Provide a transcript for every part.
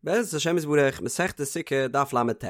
בעזרת השם יתברך, מסכת סוכה, דף ל"ט.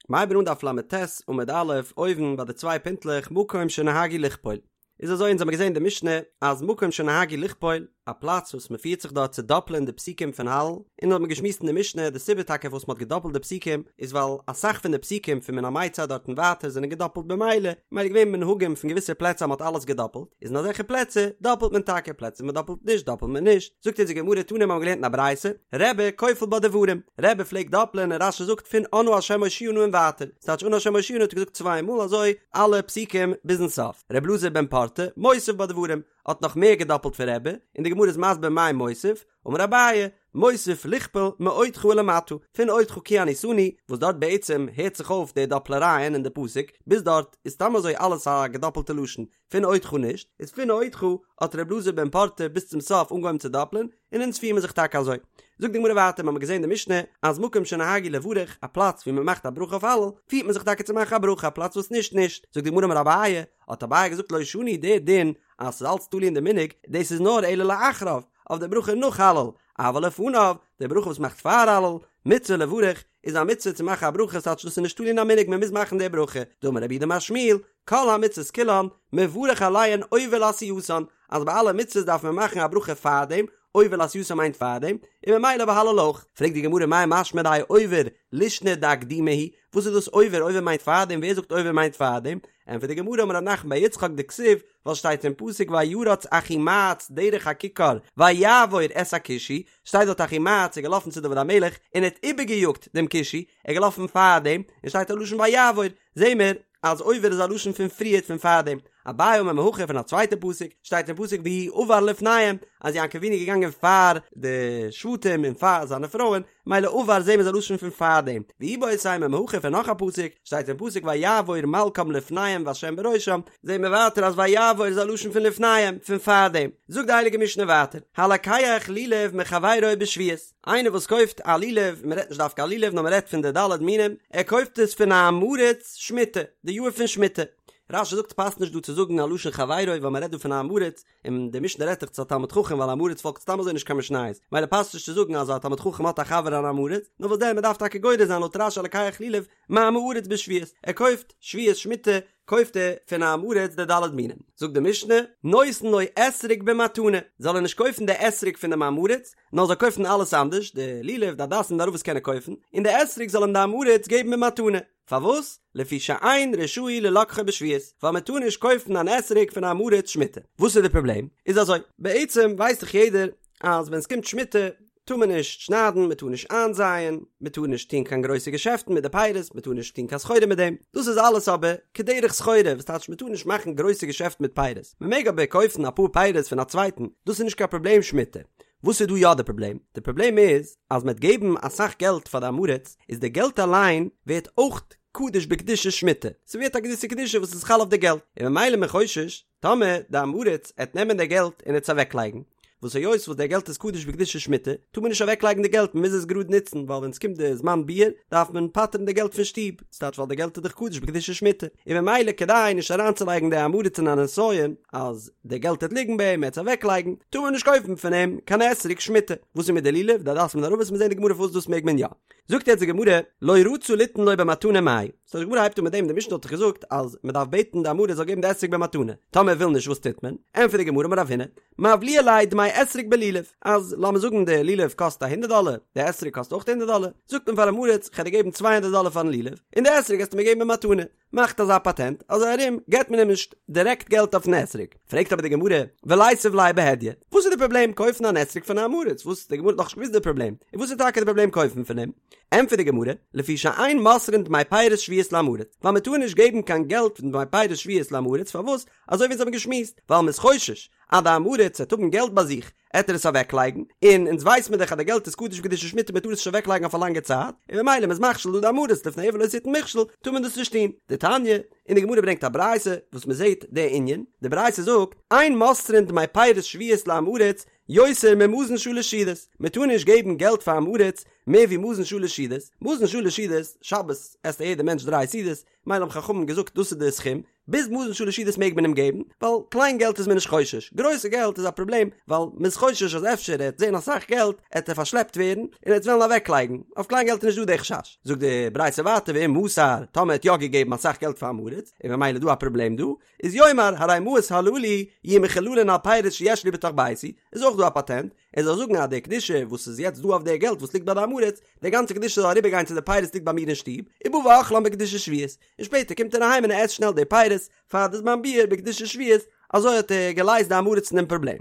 מ'הייבן אן דף ל"ט עמוד א', אויבן ביי די צוויי פינטלעך מקום שנהגו לכפול. איז אזוי אונז האמיר געזען אין די משנה אז מקום שנהגו לכפול, א פלאץ וואס מ'פירט זיך דארט צו דאפלען די פסוקים פון הלל, און האט מען געשמועסט אין די משנה די סיבה טאקע פארוואס מ'האט געדאפלט די פסוקים איז ווייל אסאך פון די פסוקים פון מן המיצר דארט און ווייטער זענען געדאפלט במילא, ממילא געווען מנהגים פון געוויסע פלעצער אז מ'האט אלעס געדאפלט, איז אין אזעלכע פלעצער דאפלט מען טאקע, פלעצער מ'דאפלט נישט דאפלט מען נישט. זאגט אונז די גמרא תנא מ'האבן געלערנט אין א ברייתא, רבי כופל בה דברים, רבי פלעגט דאפלען און רש"י זאגט פון אנא השם הושיעה נא און ווייטער, ס'טייטש אנא השם הושיעה נא האט ער געזאגט צוויי מאל אזוי אלע פסוקים ביזן סוף, ר' אלעזר בן פרטא מוסיף בה דברים, האט נאך מער געדאפלט פון רבי, און די גמרא איז מסביר מאי מוסיף, אמר אביי, מוסיף לכפול מאודך ולמטה, פון אודך כי עניתני, וואס דארט בעצם הערט זיך אויף די דאפלערייען אין די פסוק, ביז דארט איז סתם אזוי אלעס א געדאפלטע לשון, פון אודך נישט, איז פון אודך האט ר' אלעזר בן פרטא ביז צום סוף אנגעהויבן צו דאפלען, און אונז פירן מיר זיך טאקע אזוי. זאגט די גמרא ווייטער, מ'האמיר געזען די משנה אז מקום שנהגו לברך, א פלאץ ווי מ'מאכט א ברכה אויף הלל, פירט מען זיך טאקע צו מאכן א ברכה, א פלאץ וואס נישט נישט. זאגט די גמרא אמר אביי, האט אביי געזאגט לא שנו די דין אז ס'איז אלץ תלוי אין די מנהג, דאס איז נאר אלא לאחריו, אויף די ברכה נאך הלל, אבל לפניו, די ברכה וואס מ'מאכט פאר הלל, מצוה לברך, איז א מצוה צו מאכן א ברכה, ס'טייטש דאס איז נישט תלוי אין א מנהג מ'מוז מאכן די ברכה, דאמר רב יהודה אמר שמואל, כל המצוות כולן, מברך עליהן עובר לעשייתן, אז ביי אלע מצוות דארף מען מאכן א ברכה פארדעם, עובר לעשייתן מיינט פארדעם, און ממילא ביי הלל אויך. פרעגט די גמרא מאי משמע דהאי עובר לישנא דאקדומי הוא, וואס איז דאס עובר, עובר מיינט פארדעם, ווער זאגט עובר מיינט פארדעם? ענטפערט די גמרא אמר רב נחמן בר יצחק דכתיב, ווייל שטייט אין פסוק וירץ אחימעץ דרך הכיכר ויעבור את הכושי, שטייט דארט אחימעץ איז געלאפן צו דוד המלך און ער האט איבערגעיאגט דעם כושי, ער איז געלאפן פארדעם, און שטייט א לשון ויעבור, זעהן מיר אז עובר איז א לשון פון פריערט פון פארדעם, אביי אמר מהכא פון א צווייטע פסוק, שטייט אין פסוק והוא עבר לפניהם, אז יעקב אבינו איז געגאנגען פאר די שבטים און פאר זיינע פרויען, מילא עבר זעהן מיר איז א לשון פון פארדעם, ואיבעית אימא מהכא פון נאך א פסוק, שטייט אין פסוק ויעבור מלכם לפניהם והשם בראשם, זעהן מיר ווייטער אז ויעבור איז א לשון פון לפניהם, פון פארדעם. זאגט די הייליגע משנה ווייטער, הלוקח לולב מחבירו בשביעית. איינער וואס קויפט א לולב, מען רעדט נישט דווקא א לולב נאר מען רעדט פון די ד' מינים, ער קויפט עס פון א עם הארץ שמיטה, די יאר פון שמיטה. רש"י זאגט ס'פאסט נישט דא צו זאגן א לשון חברו ווייל מען רעדט דא פון א עם הארץ, און די משנה רעדט דאך צו א תלמיד חכם ווייל א עם הארץ פאלגט סתם אזוי נישט קיין משניות, מילא פאסט נישט צו זאגן אז א תלמיד חכם האט א חבר אן עם הארץ, נאר וואס דען מען דארף טאקע גורס זיין לויט רש"י הלוקח לולב מעם הארץ בשביעית, ער קויפט שביעית שמיטה קויפט ער פון א עם הארץ די ד' מינים, זאגט די משנה, נותן לו אתרוג במתנה, זאל ער נישט קויפן די אתרוג פון דעם עם הארץ, נאר זאל קויפן אלעס אנדערש, די לולב, די הדסים, די ערבות קען ער קויפן, און די אתרוג זאל אים די עם הארץ געבן במתנה. פארוואס? לפי שאין רשאי ללקחו בשביעית, ווייל מען טאר נישט קויפן אן אתרוג פון א עם הארץ שמיטה. וואס איז די פראבלעם? איז אזוי, בעצם ווייסט דאך יעדער אז ווען עס קומט שמיטה טאר מען נישט שניידן, מען טאר נישט איינזייען, מען טאר נישט טון קיין גרויסע געשעפטן מיט די פירות, מען טאר נישט טון קיין סחורה מיט דעם, דאס איז אלעס אבער כדרך סחורה, וואס טייטש מען טאר נישט מאכן גרויסע געשעפטן מיט פירות, מען מעג אבער קויפן אפאר פירות פון א צווייטן, דאס איז נישט קיין פראבלעם שמיטה. וואס איז דא יא די פראבלעם? די פראבלעם איז אז מען וועט געבן אסאך געלט פאר די עם הארץ, איז די געלט אליין ווערט אויך קדוש בקדושת שמיטה, ס'ווערט א געוויסע קדושה וואס איז חל אויף די געלט, און ממילא איז מען חושש טאמער די עם הארץ עט נעמען די געלט און עט עס אוועקלייגן, וואס היות וואס די געלט איז קדוש בקדושת שמיטה, טאר מען נישט אוועקלייגן די געלט מען מוז עס גראד נוצן, ווייל ווען עס קומט די זמן ביעור דארף מען פטר'ן די געלט פון שטוב, ס'טייטש ווייל די געלט איז דאך קדוש בקדושת שמיטה, און ממילא כדי נישט אריינצולייגן די עם הארץ אין א נסיון אז די געלט עט ליגן ביי אים ער עט עס אוועקלייגן, טאר מען נישט קויפן פון אים קיין אתרוג שמיטה. וואס איז מיט די לולב, די הדסים און ערבות, מיר זעהן די גמרא פארוואס דאס מעג מען יא. זאגט יעצט די גמרא, לא רצה ליתן לו במתנה מאי. סאו די גמרא הייבט אן מיט דעם, די משנה האט דאך געזאגט אז מען דארף בעטן די עם הארץ זאל געבן די אתרוג במתנה, טאמער ער וויל נישט וואס טוט מען? ענטפערט די גמרא אמר רב הונא, מבליע ליה דמי אתרוג בלולב, אז לאמיר זאגן די לולב קאסט א הונדערט דאלער, די אתרוג קאסט אויך הונדערט דאלער, זאגט מען פאר עם הארץ כ'על דיר געבן צוויי הונדערט דאלער פארן לולב, און די אתרוג געסטו מיר געבן במתנה, מאכט אזא פאטענט, אזוי ארום געבט מען אים נישט דירעקט געלט אויפן אתרוג. פרעגט אבער די גמרא, וליתיב ליה בהדיא, וואס איז די פראבלעם קויפן אן אתרוג פון א עם הארץ, וואס די גמרא האט נאכנישט געוואוסט די פראבלעם, און וואס איז טאקע די פראבלעם קויפן פון אים? ענטפערט די גמרא, לפי שאין מוסרין דמי פירות שביעית לעם הארץ, ווייל מען טאר נישט געבן קיין געלט פון דמי פירות שביעית לעם הארץ, פארוואס? אזוי ווי אונז האבן געשמועסט, ווייל מען איז חושש אז די עם הארץ וועט האבן געלט ביי זיך, עט ער עס אוועקלייגן, און אונז ווייס מיר דאך אז די געלט איז קדוש בקדושת שמיטה מען טאר עס נישט אוועקלייגן אויף א לאנגע צייט, און ממילא מען איז מכשיל דא די עם הארץ לפני עור לא תתן מכשול, טאר מען דאס נישט טון. דתניא, און די גמרא ברענגט א ברייתא וואס מען זעט די ענין, די ברייתא זאגט, אין מוסרין דמי פירות שביעית לעם הארץ יותר ממזון שלש סעודות, מען טאר נישט געבן געלט פאר עם הארץ מער ווי מזון שלש סעודות, מזון שלש סעודות, שבת עסט א יעדער מענטש דריי סעודות, מילא האבן חכמים געזאגט דאס איז די סכום, ביז מזון שלש סעודות מעג מען אים געבן, ווייל קליין געלט איז מען נישט חושש, גרויסע געלט איז א פראבלעם, ווייל מען איז חושש אז אפשר ער וועט זען אסאך געלט, עט ער פארשלעפט ווערן, און ער וועט וועלן אוועקלייגן, אויף קליין געלט איז נישט דא די חשש. זאגט די ברייתא ווייטער ואם מסר, טאמער ער האט יא געגעבן אסאך געלט פאר עם הארץ, און ממילא איז דא א פראבלעם דא, איז יאמר הרי מעות הללו יהיו מחוללין על פירות שיש לי בתוך ביתי, איז אויך דא א פאטענט, ער זאל זאגן אז די קדושה וואס איז יעצט דא אויף די געלט וואס ליגט ביי די עם הארץ, די גאנצע קדושה זאל אריבער גיין צו די פירות ליגט ביי מיר אין שטוב, ובא ואוכלן בקדושת שביעית, און שפעטער קומט ער אהיים און ער עסט שנעל די פירות פאר די זמן ביעור בקדושת שביעית, אזוי האט ער געלייזט די עם הארץ פון דעם פראבלעם.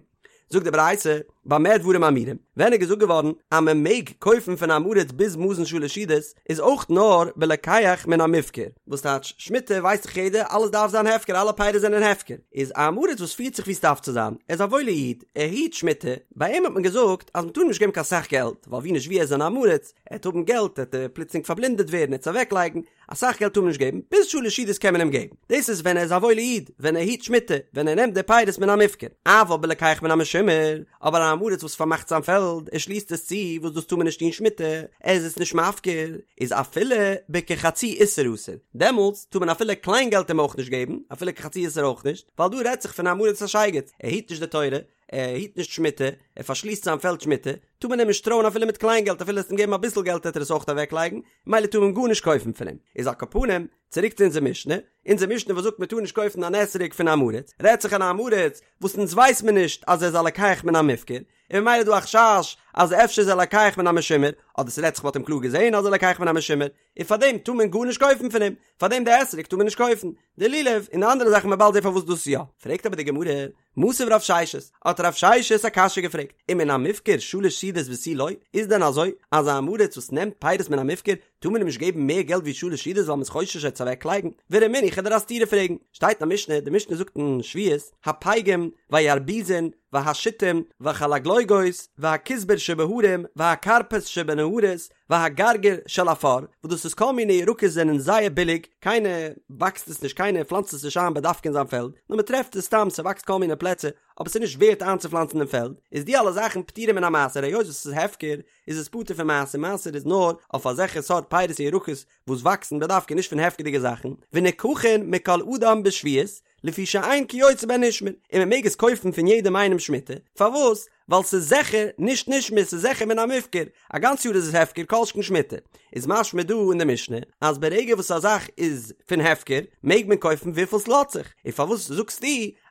זאגט די ברייתא, במה דברים אמורים, ווען איז געזאגט געווארן אז מען מעג קויפן פון עם הארץ ביז מזון שלש סעודות, איז אויך נאר בלוקח מן המופקר, וואס טייטש שמיטה ווייסט דאך יעדער אלעס דארף זיין הפקר אלע פירות זענען הפקר, איז א עם הארץ וואס פירט זיך ווי ס'דארף צו זיין, ער איז א וואוילער איד, ער היט שמיטה, ביי אים האט מען געזאגט אז מ'טאר אים נישט געבן קיין סאך געלט, ווייל ווי נישט ווי ער איז אן עם הארץ, ער וועט האבן געלט עט ער פלוצלינג פארבלינדעט ווערן ער וועט עס אוועקלייגן, אסאך געלט טאר מען נישט געבן, ביז שלש סעודות קען מען אים געבן, דאס איז ווען ער איז א וואוילע איד, ווען ער היט שמיטה, ווען ער נעמט די פירות מן המופקר, אבל בלוקח מן המשומר, אבער א עם הארץ וואס פארמאכט זיין פעלד, ער שליסט עס צו, וואס דאס טאר מען נישט טון שמיטה, ער איז עס נישט מפקיר, איז אפילו בכחצי איסר אסור, דעמאלטס טאר מען אפילו קליין געלט אים אויך נישט געבן, אפילו כחצי איסר אויך נישט, ווייל דא רעדט זיך פון א עם הארץ א שייגעץ, ער היט נישט די תורה, ער היט נישט שמיטה, ער פארשליסט זיין פעלד שמיטה, טאר מען אים נישט טרויען אפילו מיט קליין געלט, אפילו עסט אים געבן אביסל געלט וועט ער עס אויך אוועקלייגן, ממילא טאר מען גארנישט קויפן פון אים. איז על כל פנים, צוריק צו אונזער משנה, אונזער משנה וואס זאגט מען טאר נישט קויפן אן אתרוג פון עם הארץ, רעדט זיך אן עם הארץ וואס אונז ווייס מען נישט אז ער איז א לוקח מן המופקר, און ממילא איז דא א חשש אז אפשר איז ער לוקח מן המשומר, אדער ס'רעדט זיך מ'האט אים קלאר געזען אז ער לוקח מן המשומר, און פארדעם טאר מען גארנישט קויפן פון אים, פארדעם די אתרוג טאר מען נישט קויפן, די לולב און די אנדערע זאכן מ'וועט באלד זען פארוואס דאס יא. פרעגט אבער די גמרא, מתיב רב ששת, האט רב ששת א קשיא געפרעגט, ומן המופקר שלש סעודות ותו לא, איז דען אזוי אז א עם הארץ וואס נעמט פירות מן המופקר טאר מען אים נישט געבן מער געלט ווי שלש סעודות ווייל מ'איז חושש ער וועט עס אוועקלייגן? ורמינהו, כ'וועל דיר א סתירה פרעגן, שטייט אין א משנה, די משנה זאגט אין שביעית, הפייגים והירבוזין והשיטים והחלגלוגות והכוסבור שבהרים והכרפס שבנהרות והגרגיר של עפר, וואס דאס איז כל מיני ירקות זענען זייער ביליג, קיינער וואקסט עס נישט קיינער פלאנצט עס נישט איין בדווקא אין זיין פעלד, נאר מען טרעפט עס סתם ס'וואקסט כל מיני פלעצער, אבער ס'איז נישט ווערט איינצופלאנצן אין פעלד, איז די אלע זאכן פטורים מן המעשר היות וואס ס'איז הפקר איז עס פטור פון מעשר, מעשר איז נאר אויף אזעלכע סארט פירות און ירקות וואס וואקסן בדווקא נישט פון הפקר'דיגע זאכן, ונקחין מכל אדם בשביעית, לפי שאין כיוצא בהן נשמר, און מען מעג עס קויפן פון יעדעם איינעם שמיטה, פארוואס? ווייל ס'איז זיכער נישט נשמר ס'איז זיכער מן המופקר, א גאנץ יאר איז עס הפקר כל שכן שמיטה, איז משמע דא אין די משנה אז ברגע וואס א זאך איז פון הפקר מעג מען קויפן וויפיל ס'לאזט זיך, און פארוואס זאגסטו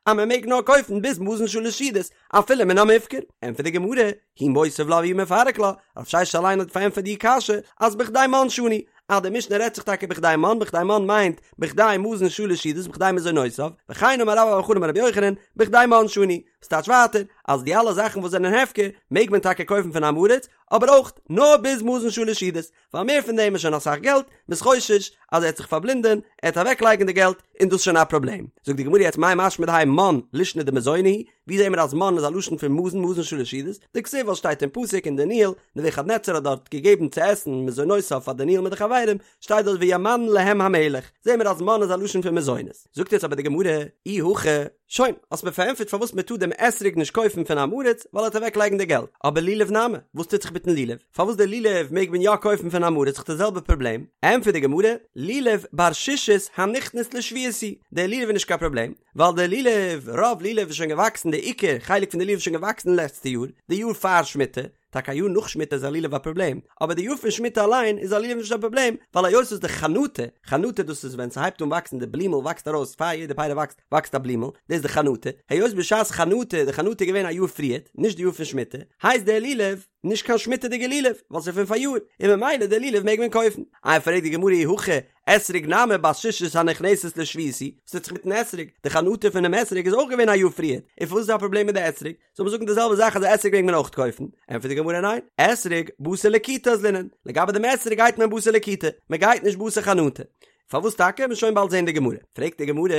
אז מען מעג נאר קויפן ביז מזון שלש סעודות אפילו מן המופקר? ענטפערט די גמרא, הוא מותיב לה והוא מפרק לה, רב ששת אליין האט פארענטפערט די קשיא אז בכדי מן שנו, אז די משנה רעדט זיך טאקע בכדי מן, בכדי מן מיינט בכדי מזון שלש סעודות בכדי מזונותיו, וכן אמר רבה בר בר חנה אמר רבי יוחנן, בכדי מן שנו, וואס טייטש ווייטער אז די אלע זאכן וואס זענען הפקר מעג מען טאקע קויפן פון עם הארץ, אבער אויך נאר ביז מזון שלש סעודות, ווייל מער פון דעם איז שוין אסאך געלט, מ'איז חושש אז ער וועט זיך פארבלינדען, ער וועט אוועקלייגן די געלט, און דאס איז שוין א פראבלעם. זאגט די גמרא יעצט מאי משמע דהאי מן לישנא דמזוני הוא, ווי זעהן מיר אז מן איז א לשון פון מזון מזון שלש סעודות, דכתיב ווייל שטייט אין פסוק אין דניאל, נבוכדנצר האט דארט געגעבן צו עסן מזונותיו פאר דניאל מיט די חברים, שטייט דארט וימן להם המלך, זעהן מיר אז מן איז א לשון פון מזונות. זאגט יעצט אבער די גמרא, אי הכי, שוין, האסט מיר פארענטפערט פארוואס מען טאר דעם אתרוג נישט קויפן פון עם הארץ, ווייל ער וועט אוועק לייגן די געלט, אבער לולב נמי, וואס טוט זיך מיטן לולב? פארוואס די לולב מעג מען יא קויפן פון עם הארץ, ס'איז דאך די זעלבע פראבלעם? ענטפערט די גמרא, לולב בר שישית הנכנס לשביעית הוא, דער לולב איז נישט קיין פראבלעם, ווייל דער לולב, רוב לולב איז שוין געוואקסן, די עיקר חלק פון די לולב איז שוין געוואקסן לעצטע יאר, די יאר פאר שמיטה, טאקע א יאר נאך שמיטה איז א לולב א פראבלעם, אבער די יאר פון שמיטה אליין איז א לולב נישט א פראבלעם, ווייל היות וואס די חנטה, חנטה דאס איז ווען ס'הייבט אן וואקסן די בלימל וואקסט ארויס פאר יעדע פרי וואקסט וואקסט א בלימל, דאס איז די חנטה, היות בשעת חנטה, די חנטה איז געווען א יאר פריערט, נישט די יאר פון שמיטה, הייסט דער לולב נישט קיין שמיטה'דיגע לולב, ווייל ס'איז פון פאריאר, און ממילא די לולב מעג מען קויפן. איי פרעגט די גמרא אי הכי, אתרוג נמי בת שישית הנכנסת לשביעית הוא, וואס טוט זיך מיטן אתרוג? די חנטה פונעם אתרוג איז אויך געווען א יאר פריערט, און פארוואס איז דא א פראבלעם מיט די אתרוג? זאל מען זאגן די זעלבע זאך אז די אתרוג מעג מען אויך קויפן? ענטפערט די גמרא ניין, אתרוג בתר לקיטה אזלינן, לגבי דעם אתרוג גייט מען בתר לקיטה, מען גייט נישט בתר חנטה. פארוואס טאקע? מ'וועט שוין באלד זען די גמרא. פרעגט די גמרא,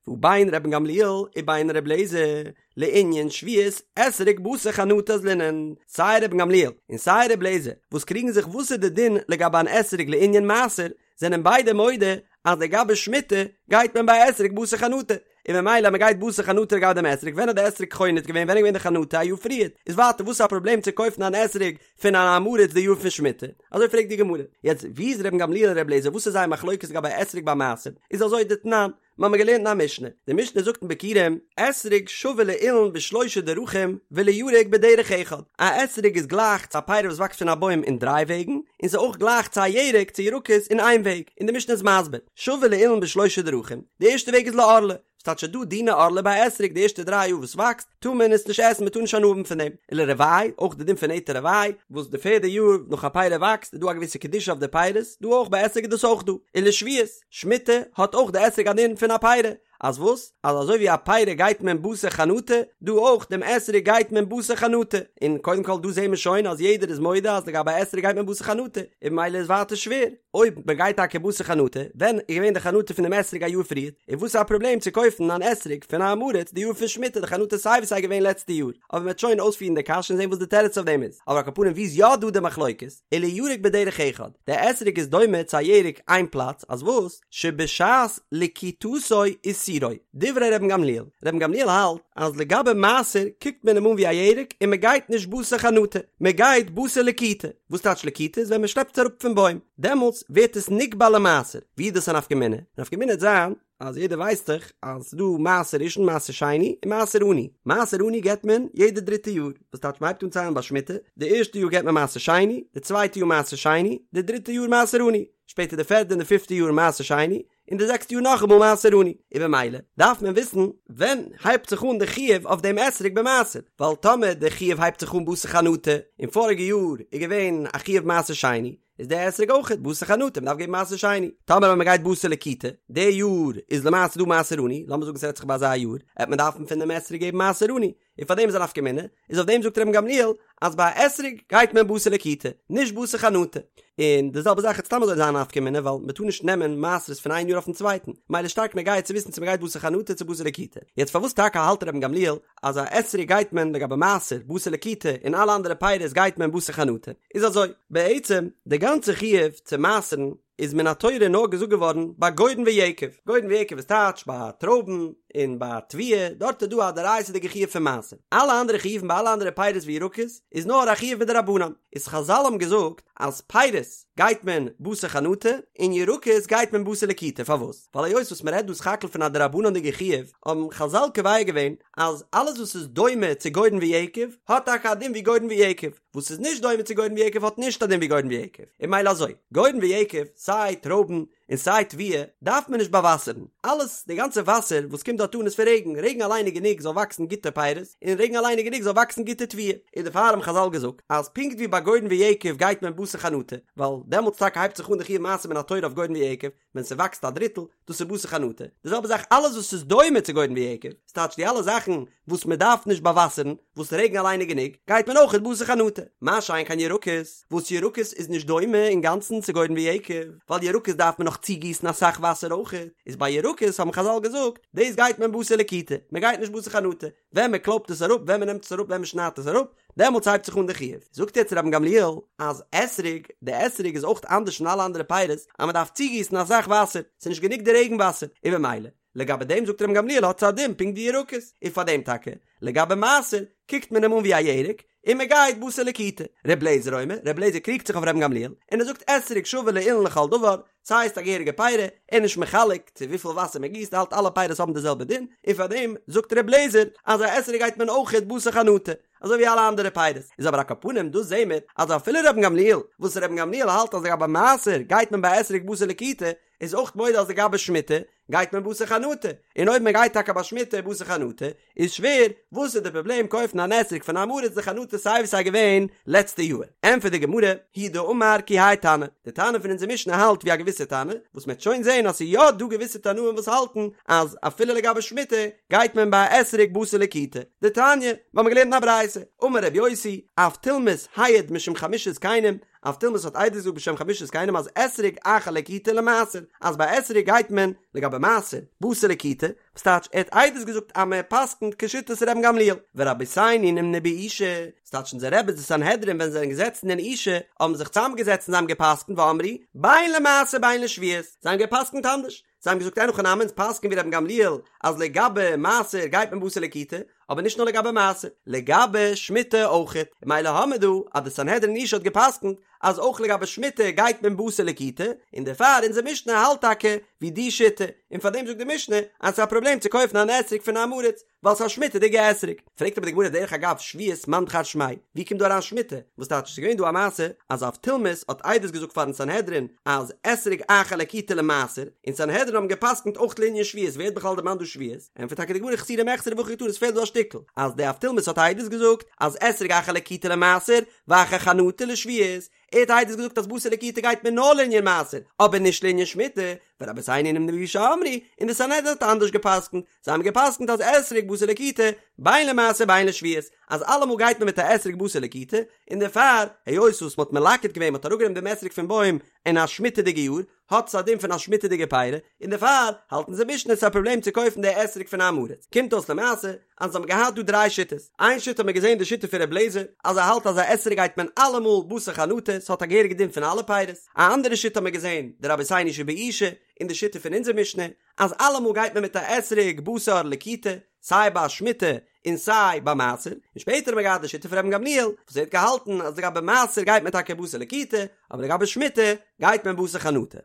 והא בין רבן גמליאל ובין ר' אליעזר, לענין שביעית אתרוג בתר חנטה אזלינן, סיי רבן גמליאל און סיי ר' אליעזר וואס קריגן זיך וואס איז די דין לגבי אן אתרוג לענין מעשר, זענען ביידע מודה אז לגבי שמיטה גייט מען ביי אתרוג בתר חנטה. און ממילא מען גייט בתר חנטה לגבי דעם אתרוג, ווען האט די אתרוג חונט געווען, ווען איז געווען די חנטה א יאר פריערט, איז ווייטער וואס איז א פראבלעם צו קויפן אן אתרוג פון אן עם הארץ די יאר פון שמיטה? אזוי פרעגט די גמרא. יעצט ווי איז רבן גמליאל און ר' אליעזר וואס איז זייער מחלוקת לגבי אתרוג ביי מעשר? איז אזוי דתנן, מיר האבן געלערנט אין א משנה, די משנה זאגט אין ביכורים, אתרוג שווה לאילן בשלושה דרכים ולירק בדרך אחד, א אתרוג איז גלייך צו א פרי וואס וואקסט פון א בוים אין דריי וועגן, און ס'איז אויך גלייך צו א ירק צו ירקות אין איין וועג, און די משנה איז מסביר, שווה לאילן בשלושה דרכים, די ערשטע וועג איז לערלה, ס'טייטש ס'איז דא דיני ערלה ביי אתרוג די ערשטע דריי יאר וואס וואקסט, טאר מען עס נישט עסן מען טאר נישט הנאה האבן פון דעם, ולרבעי, אויך די דין פון נטע רבעי, וואס די פערדע יאר נאך א פרי וואקסט איז דא א געוויסע קדושה אויף די פירות, דא אויך ביי אתרוג איז דאס אויך דא, ולשביעית. שמיטה האט אויך די אתרוג א דין פון א פרי, אז וואס? אז אזוי ווי א פרי גייט מען בתר חנטה, דא אויך דעם אתרוג גייט מען בתר חנטה, און קודם כל דא זעהן מיר שוין אז יעדער איז מודה אז לגבי אתרוג גייט מען בתר חנטה, און ממילא איז ווייטער שווער, אויב מען גייט טאקע בתר חנטה, ווען איז געווען די חנטה פון דעם אתרוג א יאר פריער, און וואס איז א פראבלעם צו קויפן אן אתרוג פון א עם הארץ די יאר פון שמיטה, די חנטה איז סיי ווי סיי געווען לעצטע יאר, אבער מען וועט שוין אויספירן די קשיא און זעהן וואס די תירוץ אויף דעם איז, אבער על כל פנים ווי איז יא דא די מחלוקת? ולירק בדרך אחד, דער אתרוג איז דומה צו א ירק איין פלאץ, אז וואס? שבשעת לקיטתו עישורו, דברי רבן גמליאל, רבן גמליאל האלט אז לגבי מעשר קוקט מען אים אן ווי א ירק און מען גייט נישט בתר חנטה, מען גייט בתר לקיטה, וואס טייטש לקיטה? איז ווען מען שלעפט עס אראפ פון בוים, דעמאלטס ווערט עס נקבע למעשר, ווי איז דאס א נפקא מינה? נפקא מינה וועט זיין אז יעדער ווייסט דאך אז ס'איז דא מעשר ראשון מעשר שני און מעשר עני, מעשר עני געבט מען יעדע דריטע יאר, וואס טייטש מ'הייבט אן ציילן ביי שמיטה, די ערשטע יאר געבט מען מעשר שני, די צווייטע יאר מעשר שני, די דריטע יאר מעשר עני, שפעטער די פערדע און די פיפטע יאר מעשר שני, און די זעקסטע יאר נאכאמאל מעשר עני, און במילא דארף מען וויסן ווען הייבט זיך אן די חיוב אויף דעם אתרוג במעשר, ווייל טאמער די חיוב הייבט זיך אן בתר חנטה, און פאריגע יאר איז געווען א חיוב מעשר שני, איז דער אתרוג אויכעט בתר חנטה, מ'דארף געבן מעשר שני. טאמער ווען מ'גייט בתר לקיטה, די יאר איז למעשה דא מעשר עני, לאמיר זאגן ס'רעדט זיך ביי אזא יאר, עט מען דארפן פון דעם אתרוג געבן מעשר עני, און פאר דעם איז א נפקא מינה, איז אויף דעם זאגט רבן גמליאל אז ביי א אתרוג גייט מען בתר לקיטה, נישט בתר חנטה. און די זעלבע זאך וועט סתם אזוי זיין א נפקא מינה ווייל מ'טאר נישט נעמען מעשרות פון איין יאר אויפן צווייטן, מילא שטארק נוגע צו וויסן צו מ'גייט בתר חנטה צו בתר לקיטה. יעצט פארוואס טאקע האלט רבן גמליאל אז א אתרוג גייט מען לגבי מעשר בתר לקיטה און אלע אנדערע פירות גייט מען בתר חנטה, איז אזוי, בעצם די גאנצע חיוב צו מעשר'ן איז מן התורה נאר געזאגט געווארן ביי גורן ויקב, גורן ויקב איז טייטש ביי טרויבן און ביי תבואה, דארט איז דא א דאורייתא'דיגע חיוב פון מעשר, אלע אנדערע חיובים ביי אלע אנדערע פירות וירקות איז נאר א חיוב מדרבנן, איז חזל האבן געזאגט אז פירות גייט מען בתר חנטה און ירקות גייט מען בתר לקיטה, פארוואס? ווייל היות וואס מען רעדט דא סך הכל פון א דרבנן'דיגע חיוב, האבן חזל קובע געווען אז אלעס וואס איז דומה צו גורן ויקב האט טאקע א דין ווי גורן ויקב, וואס איז נישט דומה צו גורן ויקב האט נישט א דין ווי גורן ויקב, און מילא אזוי, גורן ויקב, סיי טרויבן און סיי תבואה, דארף מען נישט באוואסערן, אלעס, די גאנצע וואסער וואס קומט דארט אן איז פון רעגן, רעגן אליין איז גענוג זאל וואקסן גוטע פירות, און רעגן אליין איז גענוג זאל וואקסן גוטע תבואה, און דערפאר האבן חזל געזאגט אז פונקט ווי ביי גורן ויקב גייט מען בתר חנטה, ווייל דעמאלטס טאקע הייבט זיך אן די חיוב מעשר מן התורה אויף גורן ויקב, ווען ס'וואקסט א דריטל, דאס איז בתר חנטה. די זעלבע זאך אלעס וואס איז דומה צו גורן ויקב, ס'טייטש די אלע זאכן וואס מ'דארף נישט באוואסערן, וואס רעגן אליין איז גענוג, גייט מען אויכעט בתר חנטה. מה שאין כן ירקות, וואס ירקות איז נישט דומה אינגאנצן צו גורן ויקב, ווייל ירקות דארף מען נאך צוגיסן אסאך וואסער אויכעט, איז ביי ירקות האבן חזל געזאגט, דאס גייט מען בתר לקיטה, מ'גייט נישט בתר חנטה. ווען מען קלויבט עס אראפ, ווען מען נעמט עס אראפ, ווען מען שניידט עס אראפ, דעמאלטס הייבט זיך אן די חיוב. זאגט יעצט רבן גמליאל אז אתרוג, די אתרוג איז אויך אנדערש פון אלע אנדערע פירות, אז מען דארף צוגיסן אסאך וואסער, ס'איז נישט גענוג די רעגן וואסער, און במילא, לגבי דעם זאגט רבן גמליאל האט עס א דין פונקט ווי ירקות, און פאר דעם טאקע, לגבי מעשר, קוקט מען אים אן ווי א ירק, און מען גייט בתר לקיטה. ר' לעזער אומר, ר' לעזער קריגט זיך אויף רבן גמליאל, און ער זאגט אתרוג שווה לאילן לכל דבר, ס'הייסט א געהעריגע פירי, ער איז נישט מחלק צו וויפיל וואסער מען גיסט, ער האלט אלע פירות האבן די זעלבע דין, און פאר דעם זאגט ר' לעזער אז א אתרוג גייט מען אויכעט בתר חנטה, אזוי ווי אלע אנדערע פירות. איז אבער על כל פנים דא זעהן מיר אז אפילו רבן גמליאל, וואס רבן גמליאל האלט אז לגבי מעשר גייט מען ביי אתרוג בתר לקיטה, איז אויך מודה אז לגבי שמיטה גייט מען בתר חנטה, און אויב מען גייט טאקע ביי שמיטה בתר חנטה, איז שווער, וואס איז די פראבלעם קויפן אן אתרוג פון עם הארץ די חנטה סיי ווי סיי געווען לעצטע יאהר? ענטפערט די גמרא, הוא דאמר כי האי תנא, די תנא פון אונזער משנה האלט ווי א געוויסע תנא, וואס מען וועט שוין זעהן אז ס'איז יא דא געוויסע תנאים וואס האלטן אז אפילו לגבי שמיטה גייט מען ביי א אתרוג בתר לקיטה, דתניא, מיר האבן געלערנט אין א ברייתא, אמר רבי יוסי, אבטולמוס העיד משום חמשה זקנים, אבטולמוס האט עדות געזאגט בשם חמשה זקנים אז אתרוג אחר לקיטה למעשר, אז ביי אתרוג גייט מען לגבי מעשר, בתר לקיטה, וואס טייטש ער האט עדות געזאגט אז מען פסק'נט כשיטת רבן גמליאל, ורבותינו נמנו באושא, ס'טייטש אונזער רעבעס די סנהדרין ווען זיי זענען געזעצן אין אושא האבן זיך צוזאמגעזעצט און זיי האבן געפסק'נט ואמרו בין למעשר בין לשביעית, זיי האבן געפסק'נט אנדערש, זיי האבן געזאגט אין הכי נמי אונז פסק'ן ווי רבן גמליאל אז לגבי מעשר גייט מען בתר לקיטה, אבער נישט נאר לגבי מעשר, לגבי שמיטה אויכעט, און ממילא האמיר דא אז די סנהדרין אין אושא האט געפסק'נט אז אויך לגבי שמיטה גייט מען בתר לקיטה, און דערפאר אונזער משנה האלט טאקע ווי די שיטה, און פארדעם זאגט די משנה אז ס'איז א פראבלעם צו קויפן אן אתרוג פון עם הארץ, ווייל ס'איז א שמיטה'דיגע אתרוג. פרעגט אבער די גמרא דרך אגב שביעית מאן דכר שמיה, ווי קומט דא אריין שמיטה? וואס טייטש ס'איז געווען דא א מעשה אז אבטולמוס האט עדות געזאגט פארן סנהדרין אז אתרוג אחר לקיטה למעשר, און סנהדרין האבן געפסקנט אויך לענין שביעית, ווער האט בכלל דערמאנט דא שביעית? ענטפערט טאקע די גמרא חסורי מחסרא והכי קתני עס פעלט דא א שטיקל, אז די אבטולמוס האט עדות געזאגט אז אתרוג אחר לקיטה למעשר, ואחר חנטה לשביעית, ער האט עדות געזאגט אז בתר לקיטה גייט מען נאר לענין מעשר, אבער נישט לענין שמיטה, ורבותינו נמנו באושא אמרו, און די סנהדרין האט אנדערש געפסקנט, זיי האבן געפסקנט אז אתרוג בתר לקיטה, בין למעשר בין לשביעית, אז אלעמאל גייט מען מיט א אתרוג בתר לקיטה, און דערפאר, היות וואס מ'האט מלקט געווען, מ'האט אראפגענומען דעם אתרוג פון בוים אין א שמיטה'דיגע יאר, האט עס א דין פון א שמיטה'דיגע פירי, און דערפאר האלט אונזער משנה ס'איז א פראבלעם צו קויפן די אתרוג פון עם הארץ. קומט אויס למעשה אז אונז האבן געהאט דא דריי שיטות, איין שיטה האט מען געזען די שיטה פון ר' אליעזר אז ער האלט אז א אתרוג גייט מען אלעמאל בתר חנטה, ס'האט א געהעריגע דין פון אלע פירות, א אנדערע שיטה האט מען געזען די רבותינו שבאושא און די שיטה פון אונזער משנה אז אלעמאל גייט מען מיט א אתרוג בתר לקיטה, סיי ביי שמיטה און סיי ביי מעשר, און שפעטער האט מען געהאט די שיטה פון רבן גמליאל וואס ער האט געהאלטן אז לגבי מעשר גייט מען טאקע בתר לקיטה, אבער לגבי שמיטה גייט מען בתר חנטה.